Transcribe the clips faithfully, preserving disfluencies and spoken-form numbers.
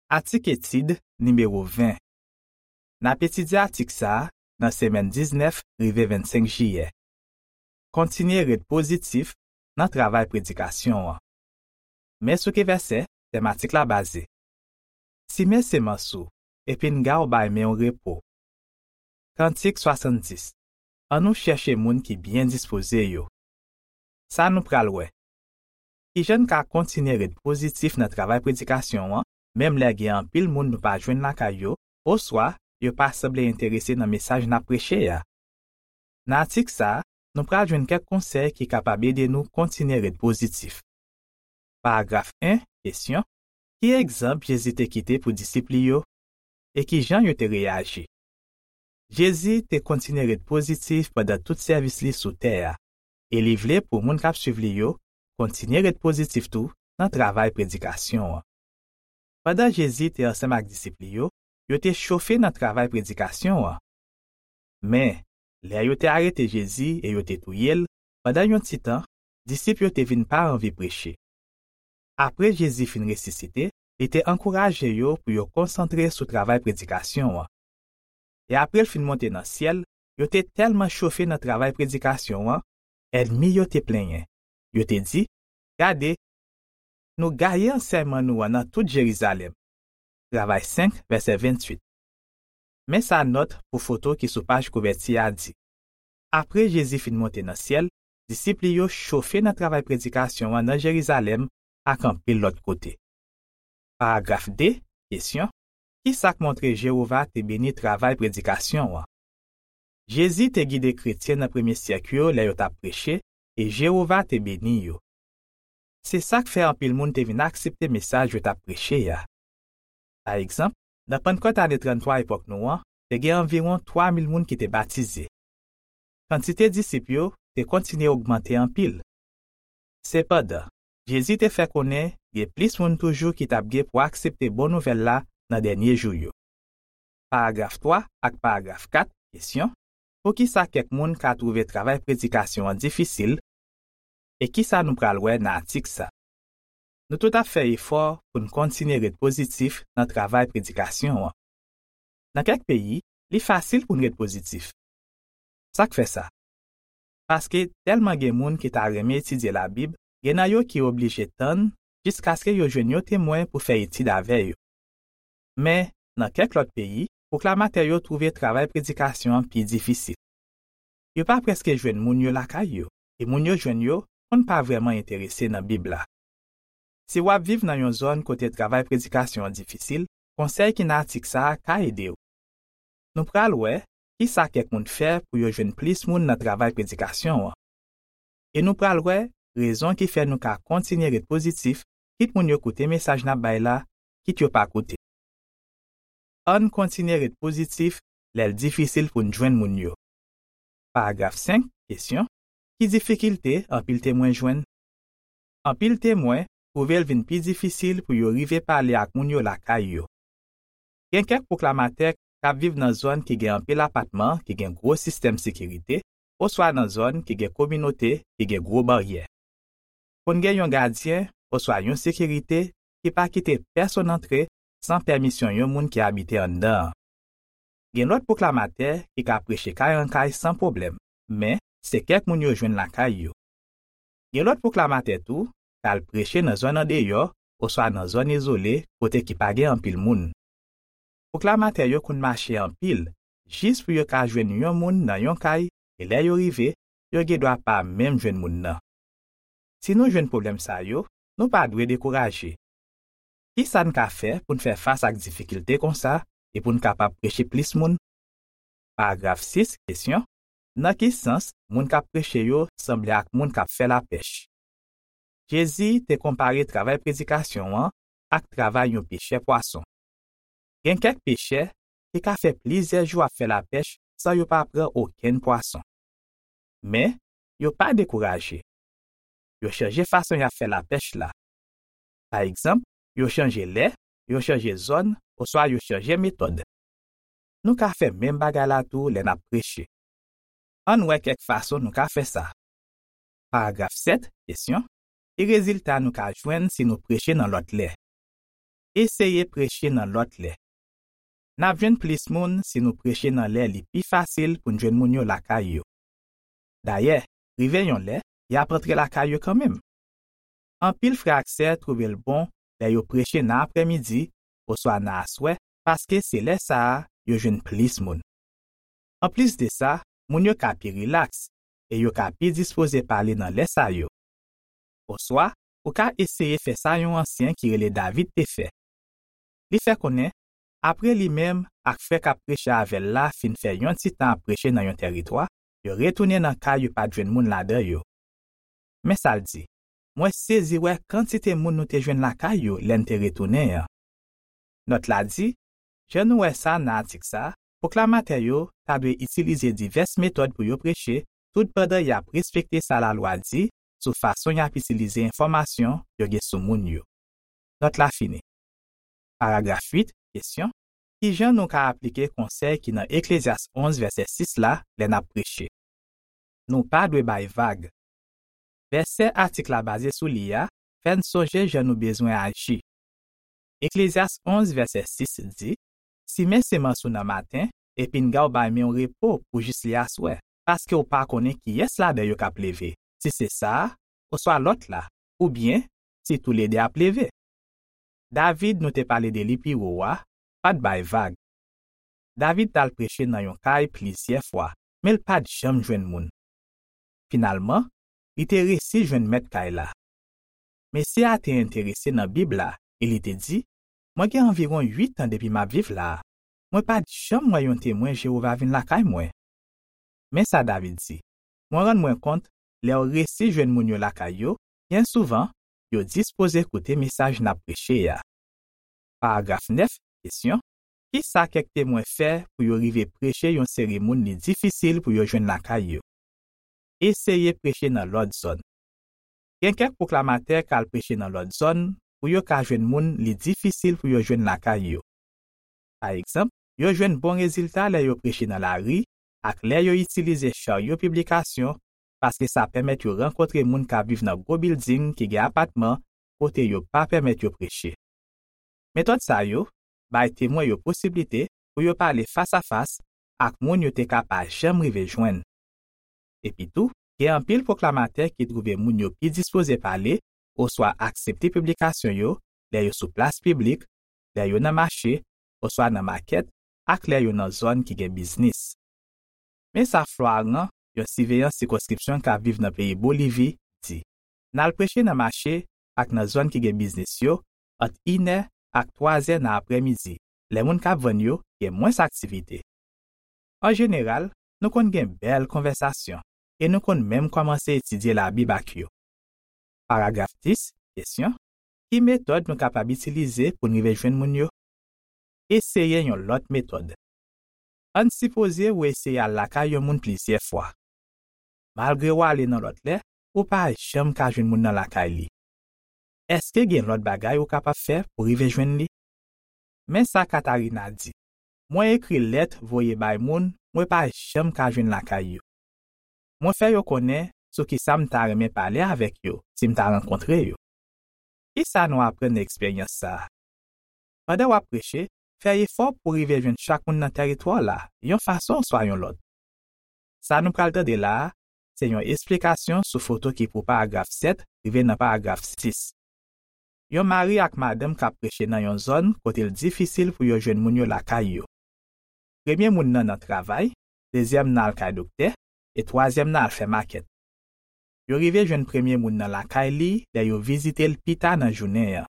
Atik etid nimewo ven. N ap etidye atik sa a nan semèn diznèf rive vennsenk jiyè. Kontinye ret pozitif nan travay predikasyon an. Men sou ki vèsè tèm atik la baze. Simen semans ou, epi n ga w bay men w repo. Kantik swasanndis. Ann nou chèche moun ki byen dispoze yo. Sa nou pral wè. Kijan n ka kontinye ret pozitif nan travay predikasyon an, menm lè gen anpil moun nou pa jwenn lakay yo, oswa yo pa sanble enterese nan mesaj n ap preche a? Nan atik sa a, nou pral jwenn kèk konsèy ki kapab ede nou kontinye ret pozitif. Paragraf en, kesyon. Ki egzanp Jezi te kite pou disip li yo, e kijan yo te reyaji? Jezi te kontinye ret pozitif pandan tout sèvis li sou tè a, e li vle pou moun k ap suiv li yo kontinye ret pozitif tou nan travay predikasyon an. Pandan Jezi te ansanm ak disip li yo, yo te chofe nan travay predikasyon an. Men, lè yo te arete Jezi e yo te touye l, pandan yon ti tan, disip yo te vin pa anvi preche. Apre Jezi fin resisite, li te ankouraje yo pou yo konsantre sou travay predikasyon an. E apre l fin monte nan syèl, yo te tèlman chofe nan travay predikasyon an, ènmi yo te plenyen. Yo te di, "Gade, nou gaye ansèyman nou an nan tout Jerizalèm." Travay senk, vèsè venntuit. Men sa nòt pou foto ki sou paj kouvèti a di. Apre Jezi fin monte nan syèl, disip li yo chofe nan travay predikasyon an nan Jerizalèm ak anpil lòt kote. Paragraf de, kesyon. Ki sa k montre Jewova te beni travay predikasyon an? Jezi te gide kretyen nan premye syèk yo lè yo t ap preche, e Jewova te beni yo. Se sa k fè anpil moun te vin aksepte mesaj yo t ap preche a. Pa egzanp, nan Pannkòt ane tranntwa epòk nou an, te gen anviwon twa mil moun ki te batize. Kantite disip yo te kontinye ogmante anpil. Sepandan, Jezi te fè konnen gen plis moun toujou ki t ap gen pou aksepte bon nouvèl la nan dènye jou yo. Paragraf twa ak paragraf kat, kesyon. Poukisa kèk moun ka twouve travay predikasyon an difisil, e ki sa nou pral wè nan atik sa? Nou tout ap fè efò pou n kontinye ret pozitif nan travay predikasyon an. Nan kèk peyi, li fasil pou n ret pozitif. Sa k fè sa? Paske tèlman gen moun ki ta renmen etidye Labib, gen nan yo ki oblije tann jiskaske yo jwenn yon temwen pou fè etid avè yo. Men, nan kèk lòt peyi, pwoklamatè yo twouve travay predikasyon an pi difisil. Yo pa prèske jwenn moun yo lakay yo, e moun yo jwenn yo konn pa vrèman enterese nan Bib la. Si w ap viv nan yon zòn kote travay predikasyon an difisil, konsèy ki nan atik sa a ka ede w. Nou pral wè ki sa kèk moun fè pou yo jwenn plis moun nan travay predikasyon an. E nou pral wè rezon ki fè nou ka kontinye ret pozitif, kit moun yo koute mesaj n ap bay la, kit yo pa koute. Ann kontinye ret pozitif lè l difisil pou n jwenn moun yo. Paragraf senk, kesyon. Ki difikilte anpil temwen jwenn? Anpil temwen twouve l vin pi difisil pou yo rive pale ak moun yo lakay yo. Gen kèk pwoklamatè k ap viv nan zòn ki gen anpil apatman ki gen gwo sistèm sekirite, oswa nan zòn ki gen kominote ki gen gwo baryè. Konn gen yon gadyen oswa yon sekirite ki pa kite pèsonn antre san pèmisyon yon moun ki abite anndan an. Gen lòt pwoklamatè ki ka preche kay an kay san pwoblèm, men se kèk moun yo jwenn lakay yo. Gen lòt pwoklamatè tou k al preche nan zòn andeyò oswa nan zòn izole kote ki pa gen anpil moun. Pwoklamatè yo konn mache anpil jis pou yo ka jwenn yon moun nan yon kay, e lè yo rive, yo gendwa pa menm jwenn moun nan. Si nou jwenn pwoblèm sa yo, nou pa dwe dekouraje. Ki sa n ka fè pou n fè fas ak difikilte konsa e pou n kapab preche plis moun? Paragraf sis, kesyon. Nan ki sans moun k ap preche yo sanble ak moun k ap fè lapèch? Jezi te konpare travay predikasyon an ak travay yon pechè pwason. Gen kèk pechè ki ka fè plizyè jou ap fè lapèch san yo pa pran okenn pwason. Men, yo pa dekouraje. Yo chanje fason y ap fè lapèch la. Pa egzanp, yo chanje lè, yo chanje zòn, oswa yo chanje metòd. Nou ka fè menm bagay la tou lè n ap preche. Ann wè kèk fason nou ka fè sa. Paragraf sèt, kesyon. Ki rezilta nou ka jwenn si nou preche nan lòt lè? Eseye preche nan lòt lè. N ap jwenn plis moun si nou preche nan lè li pi fasil pou n jwenn moun yo lakay yo. Dayè, rive yon lè, y ap antre lakay yo kanmenm. Anpil frè ak sè twouve l bon lè yo preche nan aprèmidi oswa nan aswè, paske se lè sa a yo jwenn plis moun. Anplis de sa, moun yo ka pi rilaks e yo ka pi dispoze pale nan lè sa yo. Oswa, ou ka eseye fè sa yon ansyen ki rele David te fè. Li fè konnen, apre li menm ak frè k ap preche avè l la fin fè yon ti tan ap preche nan yon tèritwa, yo retounen nan kay yo pa t jwenn moun ladan yo. Men sa l di: Mwen sezi wè kantite moun nou te jwenn lakay yo lè n te retounen an. Nòt la di: Jan nou wè sa nan atik sa a, pwoklamatè yo ta dwe itilize divès metòd pou yo preche, tout pandan y ap respekte sa lalwa di sou fason y ap itilize enfòmasyon yo gen sou moun yo. Nòt la fini. Paragraf uit, kesyon: Ki jan nou ka aplike konsèy ki nan Eklezyas onz vèsè sis la lè n ap preche? Nou pa dwe bay vag. Vèsè atik la baze sou li a fè n sonje jan nou bezwen aji. Eklezyas onz vèsè sis di: Simen semans ou nan maten, epi n ga w bay men w repo pou jis li aswè, paske w pa konnen kiyès ladan yo k ap leve, si se sa a, oswa lòt la, oubyen si toulede ap leve. David, nou te pale de li pi wo a, pa t bay vag. David t al preche nan yon kay plizyè fwa, men l pa t janm jwenn moun. Finalman, li te resi jwenn mèt kay la. Mesye a te enterese nan Bib la e li te di: Mwen gen anviwon uit an depi m ap viv la a. Mwen pa t janm wè yon Temwen Jewova vin lakay mwen. Men sa David di: Mwen rann mwen kont, lè w resi jwenn moun yo lakay yo, byen souvan, yo dispoze koute mesaj n ap preche a. Paragraf nèf, kesyon: Ki sa kèk Temwen fè pou yo rive preche yon seri moun li difisil pou yo jwenn lakay yo? Eseye preche nan lòt zòn. Gen kèk pwoklamatè k al preche nan lòt zòn pou yo ka jwenn moun li difisil pou yo jwenn lakay yo. Pa egzanp, yo jwenn bon rezilta lè yo preche nan lari ak lè yo itilize charyo piblikasyon, paske sa pèmèt yo rankontre moun k ap viv nan gwo bilding ki gen apatman kote yo pa pèmèt yo preche. Metòd sa yo bay Temwen yo posiblite pou yo pale fasafas ak moun yo te ka pa janm rive jwenn. Epitou, gen anpil pwoklamatè ki twouve moun yo pi dispoze pale oswa aksepte piblikasyon yo lè yo sou plas piblik, lè yo nan mache, oswa nan makèt, ak lè yo nan zòn ki gen biznis. Men sa Floaran, yon siveyan sikonskripsyon k ap viv nan peyi Bolivi, di: N al preche nan mache ak nan zòn ki gen biznis yo ant inè ak twazè nan aprèmidi, lè moun k ap vann yo gen mwens aktivite. An jeneral, nou konn gen bèl konvèsasyon e nou konn menm kòmanse etidye Labib ak yo. Paragraf dis, kesyon: Ki metòd nou kapab itilize pou n rive jwenn moun yo? Eseye yon lòt metòd. Ann sipoze ou eseye al lakay yon moun plizyè fwa. Malgre w ale nan lòt lè, ou pa janm ka jwenn moun nan lakay li. Èske gen lòt bagay ou kapab fè pou rive jwenn li? Men sa Katarina di: Mwen ekri lèt voye bay moun mwen pa janm ka jwenn lakay yo. Mwen fè yo konnen sou ki sa m ta renmen pale avèk yo si m ta rankontre yo. Ki sa nou aprann nan eksperyans sa a? Pandan w ap preche, fè efò pou w rive jwenn chak moun nan tèritwa w la, yon fason oswa yon lòt. Sa nou pral tande la a, se yon esplikasyon sou foto ki pou paragraf sèt rive nan paragraf sis. Yon mari ak madanm k ap preche nan yon zòn kote l difisil pou yo jwenn moun yo lakay yo. Premye moun nan nan travay, dezyèm nan al kay doktè, e twazyèm nan al fè makèt. Yo rive jwenn premye moun nan lakay li lè yo vizite l pita nan jounen an.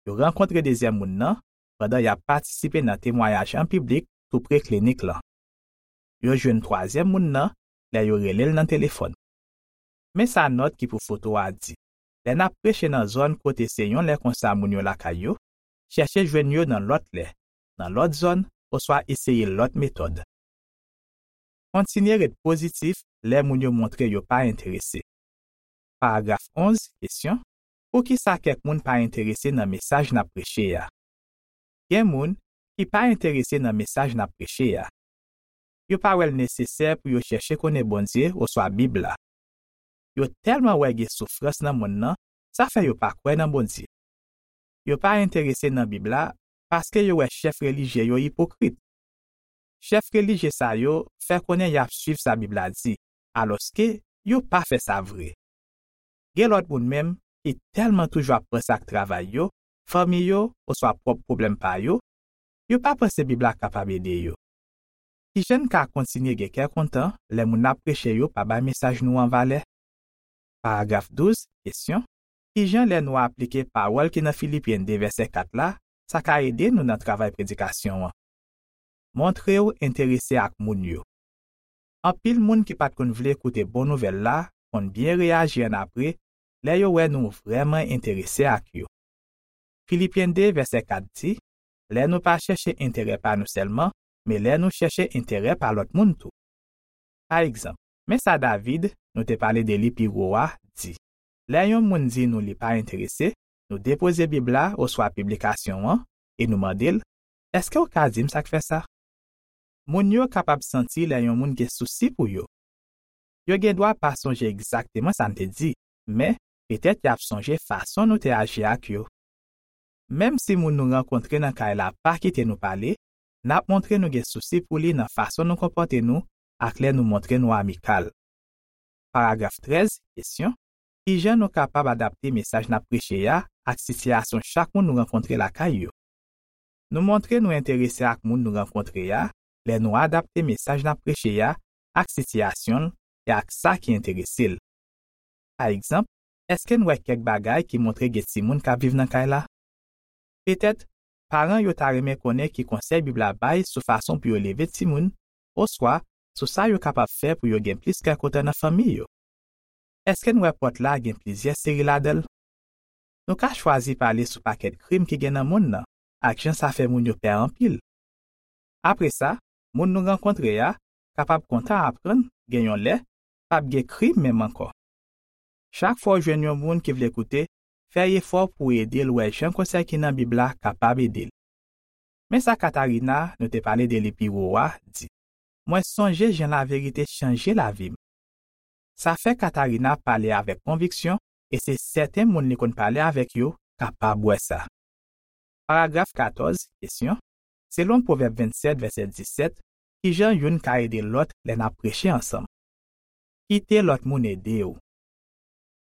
Yo rankontre dezyèm moun nan pandan y ap patisipe nan temwayaj an piblik toupre klinik lan. Yo jwenn twazyèm moun nan lè yo rele l nan telefòn. Men sa nòt ki pou foto a di: Lè n ap preche nan zòn kote se yon lè konsa moun yo lakay yo, chèche jwenn yo nan lòt lè, nan lòt zòn, oswa eseye lòt metòd. Kontinye ret pozitif lè moun yo montre yo pa enterese. Paragraf onz, kesyon: Poukisa kèk moun pa enterese nan mesaj n ap preche a? Gen moun ki pa enterese nan mesaj n ap preche a. Yo pa wè l nesesè pou yo chèche konnen Bondye oswa Bib la. Yo tèlman wè gen soufrans nan monn nan, sa fè yo pa kwè nan Bondye. yo pa enterese nan Bib la paske yo wè chèf relijye yo ipokrit. Chèf relijye sa yo fè konnen y ap suiv sa Bib la di, alòske yo pa fè sa vre. Gen lòt moun menm ki tèlman toujou ap panse ak travay yo, fanmi yo, oswa pwòp pwoblèm pa yo, yo pa panse Bib la kapab ede yo. Kijan n ka kontinye gen kè kontan lè moun n ap preche yo pa bay mesaj nou an valè? Paragraf douz, kesyon: Kijan lè nou aplike pawòl ki nan Filipyen de vèsè kat la, sa ka ede nou nan travay predikasyon an? Montre w enterese ak moun yo. Anpil moun ki pa t konn vle koute bon nouvèl la konn byen reyaji annapre lè yo wè nou vrèman enterese ak yo. Filipyen de vèsè kat di: Lè nou pa chèche enterè pa nou sèlman, men lè nou chèche enterè pa lòt moun tou. Pa egzanp, men sa David, nou te pale de li pi wo a, di: Lè yon moun di nou li pa enterese, nou depoze Bib la oswa piblikasyon an e nou mande l: Èske w ka di m sa k fè sa? Moun yo kapab santi lè yon moun gen sousi pou yo. Yo gen dwa pa sonje egzakteman sa n te di, men petèt y ap sonje fason nou te aji ak yo. Menm si moun nou rankontre nan kay la pa kite nou pale, n ap montre nou gen sousi pou li nan fason nou konpòte nou ak lè nou montre nou amikal. Paragraf trèz, kesyon: Kijan nou kapab adapte mesaj n ap preche a ak sitiyasyon chak moun nou rankontre lakay yo? Nou montre nou enterese ak moun nou rankontre a lè nou adapte mesaj n ap preche a ak sitiyasyon l e ak sa ki enterese l. Pa egzanp, èske n wè kèk bagay ki montre gen timoun k ap viv nan kay la? Petèt, paran yo ta renmen konnen ki konsèy Bib la bay sou fason pou yo leve timoun, oswa sou sa yo kapab fè pou yo gen plis kè kontan nan fanmi yo. Èske n wè pòt la gen plizyè seri ladan l? Nou ka chwazi pale sou pakèt krim ki gen nan monn nan ak jan sa fè moun yo pè anpil. Apre sa, moun nou rankontre a kapab kontan aprann gen yon lè p ap gen krim menm ankò. Chak fwa w jwenn yon moun ki vle koute, fè efò pou w ede l wè jan konsèy ki nan Bib la kapab ede l. Men sa Katarina, nou te pale de li pi wo a, di: Mwen sonje jan laverite chanje lavi m. Sa fè Katarina pale avèk konviksyon e se sèten moun li konn pale avèk yo kapab wè sa. Paragraf katòz, kesyon: Selon Pwovèb vennsèt, vèsè disèt, kijan youn ka ede lòt lè n ap preche ansanm? Kite lòt moun ede w.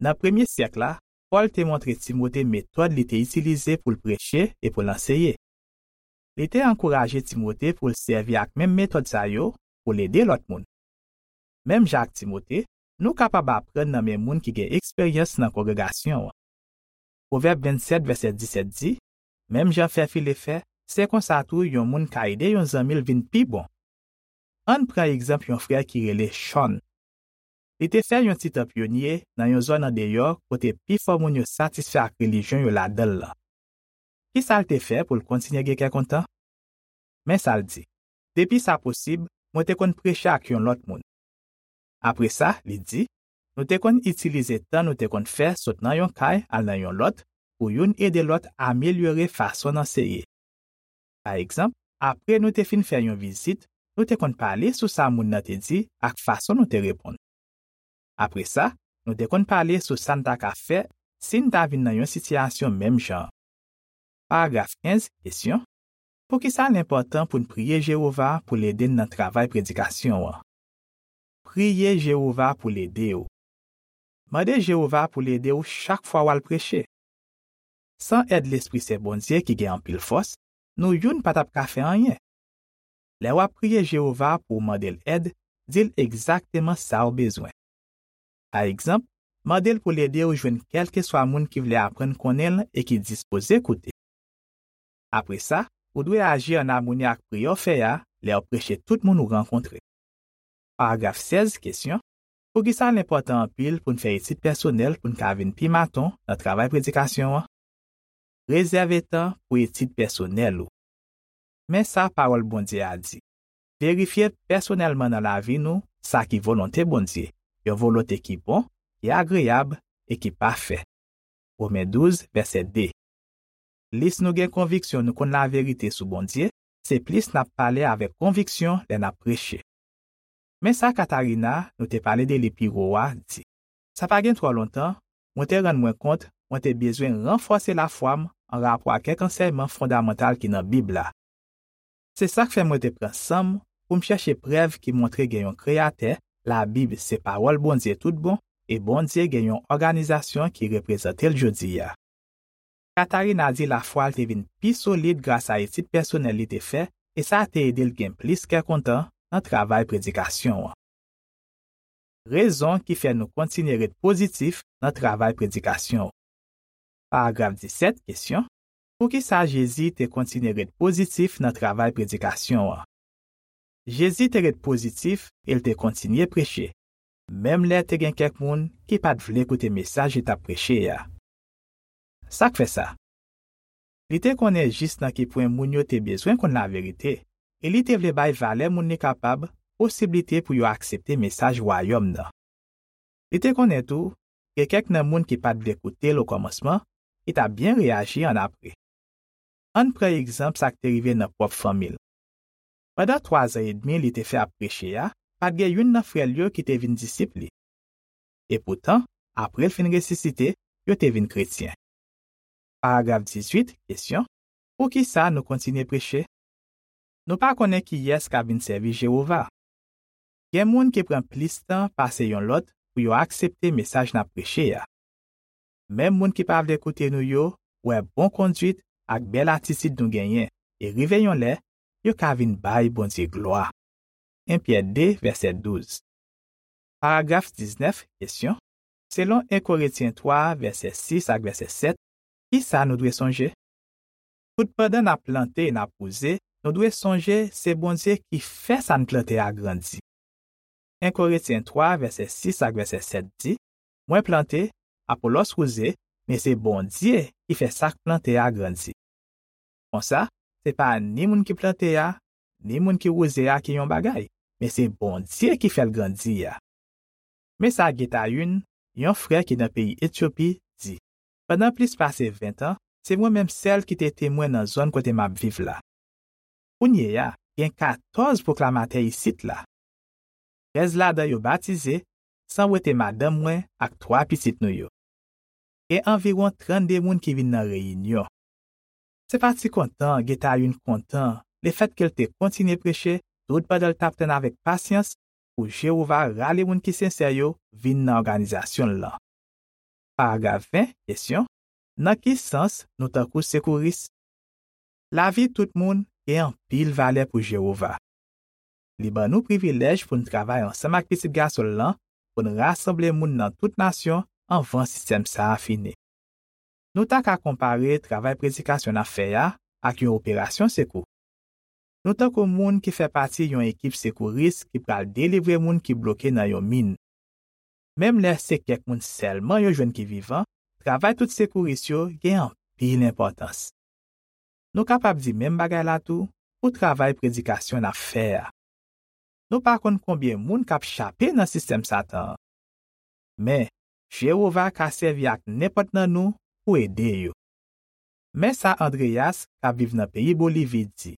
Nan premye syèk la, Pòl te montre Timote metòd li te itilize pou l preche e pou l anseye. Li te ankouraje Timote pou l sèvi ak menm metòd sa yo pou l ede lòt moun. Menm jan ak Timote, nou kapab aprann nan men moun ki gen eksperyans nan kongregasyon an. Pwovèb vennsèt, vèsè disèt di: Menm jan fè file fè, se konsa tou yon moun ka ede yon zanmi l vin pi bon. Ann pran egzanp yon frè ki rele Sean. Li te fè yon ti tan pyonye nan yon zòn andeyò kote pifò moun yo satisfè ak relijyon yo ladan l lan. Ki sa l te fè pou l kontinye gen kè kontan? Men sa l di: Depi sa posib, mwen te konn preche ak yon lòt moun. Apre sa, li di, nou te konn itilize tan nou te konn fè sot nan yon kay al nan yon lòt pou youn ede lòt amelyore fason n anseye. Pa egzanp, apre nou te fin fè yon vizit, nou te konn pale sou sa moun nan te di ak fason nou te reponn. Apre sa, nou te konn pale sou sa n ta ka fè si n ta vin nan yon sitiyasyon menm jan an. Paragraf kenz, kesyon: Poukisa l enpòtan pou n priye Jewova pou l ede n nan travay predikasyon an? Priye Jewova pou l ede w. Mande Jewova pou l ede w chak fwa w al preche. San èd Lespri Sen Bondye ki gen anpil fòs, nou youn pa t ap ka fè anyen. Lè w ap priye Jewova pou w mande l èd, di l egzakteman sa w bezwen. Pa egzanp, mande l pou l ede w jwenn kèlkeswa moun ki vle aprann konnen l e ki dispoze koute. Apre sa, ou dwe aji ann amoni ak priyè w fè a lè w preche tout moun ou rankontre. Paragraf sèz, kesyon: Poukisa l enpòtan anpil pou n fè etid pèsonèl pou n ka vin pi maton nan travay predikasyon an? Rezève tan pou etid pèsonèl ou. Men sa Pawòl Bondye a di: Verifye pèsonèlman nan lavi nou sa ki volonte Bondye, yon volonte ki bon, ki agreyab e ki pafè. Women douz, vèsè de. Plis nou gen konviksyon nou konn laverite sou Bondye, se plis n ap pale avèk konviksyon lè n ap preche. Men sa Katarina, nou te pale de li pi wo a, di: Sa pa gen twò lontan, mwen te rann mwen kont mwen te bezwen ranfòse lafwa m anrapò ak kèk ansèyman fondamantal ki nan Bib la. Se sa k fè mwen te pran san m pou m chèche prèv ki montre gen yon Kreyatè, Labib se pawòl Bondye toutbon, e Bondye gen yon òganizasyon ki reprezante l jodi a. Katarina di lafwa l te vin pi solid gras a etid pèsonèl li te fè, e sa te ede l gen plis kè kontan nan travay predikasyon an. Rezon ki fè nou kontinye ret pozitif nan travay predikasyon. Paragraf disèt, kesyon: Poukisa Jezi te kontinye ret pozitif nan travay predikasyon an? Jezi te ret pozitif e l te kontinye preche, menm lè te gen kèk moun ki pa t vle koute mesaj li t ap preche a. Sa k fè sa? Li te konnen jis nan ki pwen moun yo te bezwen konn laverite, e li te vle bay valè moun li kapab posiblite pou yo aksepte mesaj Wayòm nan. Li te konnen tou, gen kèk nan moun ki pa t vle koute l okòmansman, ki t ap byen reyaji annapre. Ann pran egzanp sa k te rive nan pwòp fanmi l. Pandan twazan edmi li te fè ap preche a, pa t gen youn nan frè l yo ki te vin disip li. Epoutan, apre l fin resisite, yo te vin kretyen. Paragraf dizuit, kesyon: Poukisa nou kontinye preche? Nou pa konnen kiyès k ap vin sèvi Jewova. Gen moun ki pran plis tan pase yon lòt pou yo aksepte mesaj n ap preche a. Menm moun ki pa vle koute nou yo wè bon konduit ak bèl atitid nou genyen, e rive yon lè, yo ka vin bay Bondye glwa. En Pyè de, vèsè douz. Paragraf diznèf, kesyon: Selon en Korentyen twa, vèsè sis ak vèsè sèt, kisa nou dwe sonje? Toutpandan n ap plante e n ap wouze, nou dwe sonje se Bondye ki fè sa n plante a grandi. En Korentyen twa, vèsè sis ak vèsè sèt di: Mwen plante, Apolòs wouze, men se Bondye ki fè sa k plante a grandi. Konsa, se pa ni moun ki plante a, ni moun ki wouze a ki yon bagay, men se Bondye ki fè l grandi a. Men sa Getayun, yon frè ki nan peyi Etyopi, di: Pandan plis pase ven tan, se mwen menm sèl ki te temwen nan zòn kote m ap viv la. Kounye a, gen katòz pwoklamatè isit la. Trèz ladan yo batize, san wete madanm mwen ak twa pitit nou yo. Gen anviwon trannde moun ki vin nan reyinyon. Se pa ti kontan Getayun kontan lefètke l te kontinye preche toutpandan l t ap tann avèk pasyans pou Jewova rale moun ki sensè yo vin nan òganizasyon l lan. Paragraf ven, kesyon: Nan ki sans nou tankou sekouris? Lavi tout moun gen anpil valè pou Jewova. Li ban nou privilèj pou n travay ansanm ak Pitit Gason l lan pou n rasanble moun nan tout nasyon anvan sistèm sa a fini. Nou ta ka konpare travay predikasyon n ap fè a ak yon operasyon sekou. Nou tankou moun ki fè pati yon ekip sekouris ki pral delivre moun ki bloke nan yon min. Menm lè se kèk moun sèlman yo jwenn ki vivan, travay tout sekouris yo gen anpil enpòtans. Nou kapab di menm bagay la tou pou travay predikasyon n ap fè a. Nou pa konn konbyen moun k ap chape nan sistèm Satan an. Men, Jewova ka sèvi ak nenpòt nan nou pou ede yo. Men sa Andreas, k ap viv nan peyi Bolivi, di: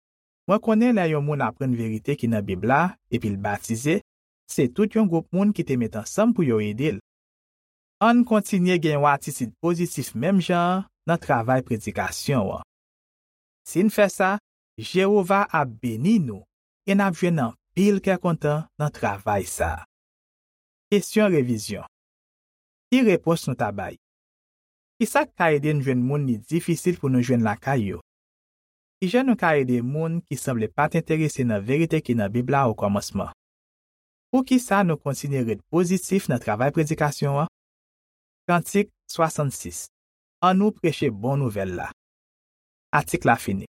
Mwen konnen lè yon moun aprann verite ki nan Bib la epi l batize, se tout yon gwoup moun ki te met ansanm pou yo ede l. Ann kontinye gen yon atitid pozitif menm jan an nan travay predikasyon an. Si n fè sa, Jewova ap beni nou e n ap jwenn anpil kè kontan nan travay sa a. Kesyon revizyon. Ki repons nou ta bay? Ki sa k ka ede n jwenn moun li difisil pou nou jwenn lakay yo? Ki jan nou ka ede moun ki sanble pa t enterese nan verite ki nan Bib la okòmansman? Poukisa nou kontinye ret pozitif nan travay predikasyon an? Kantik swasannsis. Annou preche bon nouvèl la. Atik la fini.